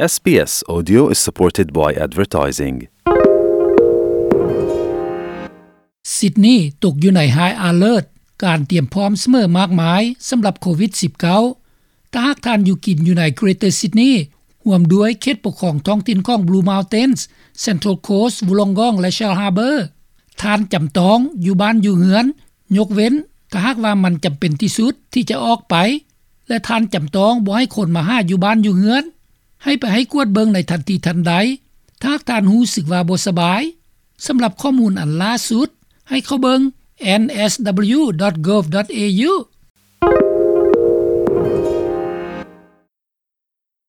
SBS Audio is supported by advertising. ຊິດນີຕົກຢູ່ໃນ High Alert ການຕຽມພ້ອມສະເໝີມາກມາຍສຳລັບໂຄວິດ-19. ຖ້າຫາກທ່ານຢູ່ກິນຢູ່ໃນ Greater Sydney ຮ່ວມດ້ວຍເຂດປົກຄອງທ້ອງຖິ່ນຂອງ Blue Mountains, Central Coast, Wollongong ແລະ Shell Harbour, ທ່ານຈຳຕ້ອງຢູ່ບ້ານຢູ່ເຮືອນ, ຍົກເວັ້ນຖ້າຫາກວ່າມັນຈຳເປັນທີ່ສຸດທີ່ຈະອອກໄປ ແລະ ທ່ານຈຳຕ້ອງບໍ່ໃຫ້ຄົນມາຫາຢູ່ບ້ານຢູ່ເຮືອນ, ໃຫ້ໄປໃຫ້ກວດເບິ່ງໃນທັນທີທັນໃດ ຖ້າຫາກທ່ານຮູ້ສຶກວ່າບໍ່ສະບາຍ. ສຳລັບຂໍ້ມູນອັນລ່າສຸດ, ໃຫ້ເຂົ້າເບິ່ງ N S W dot gov dot A U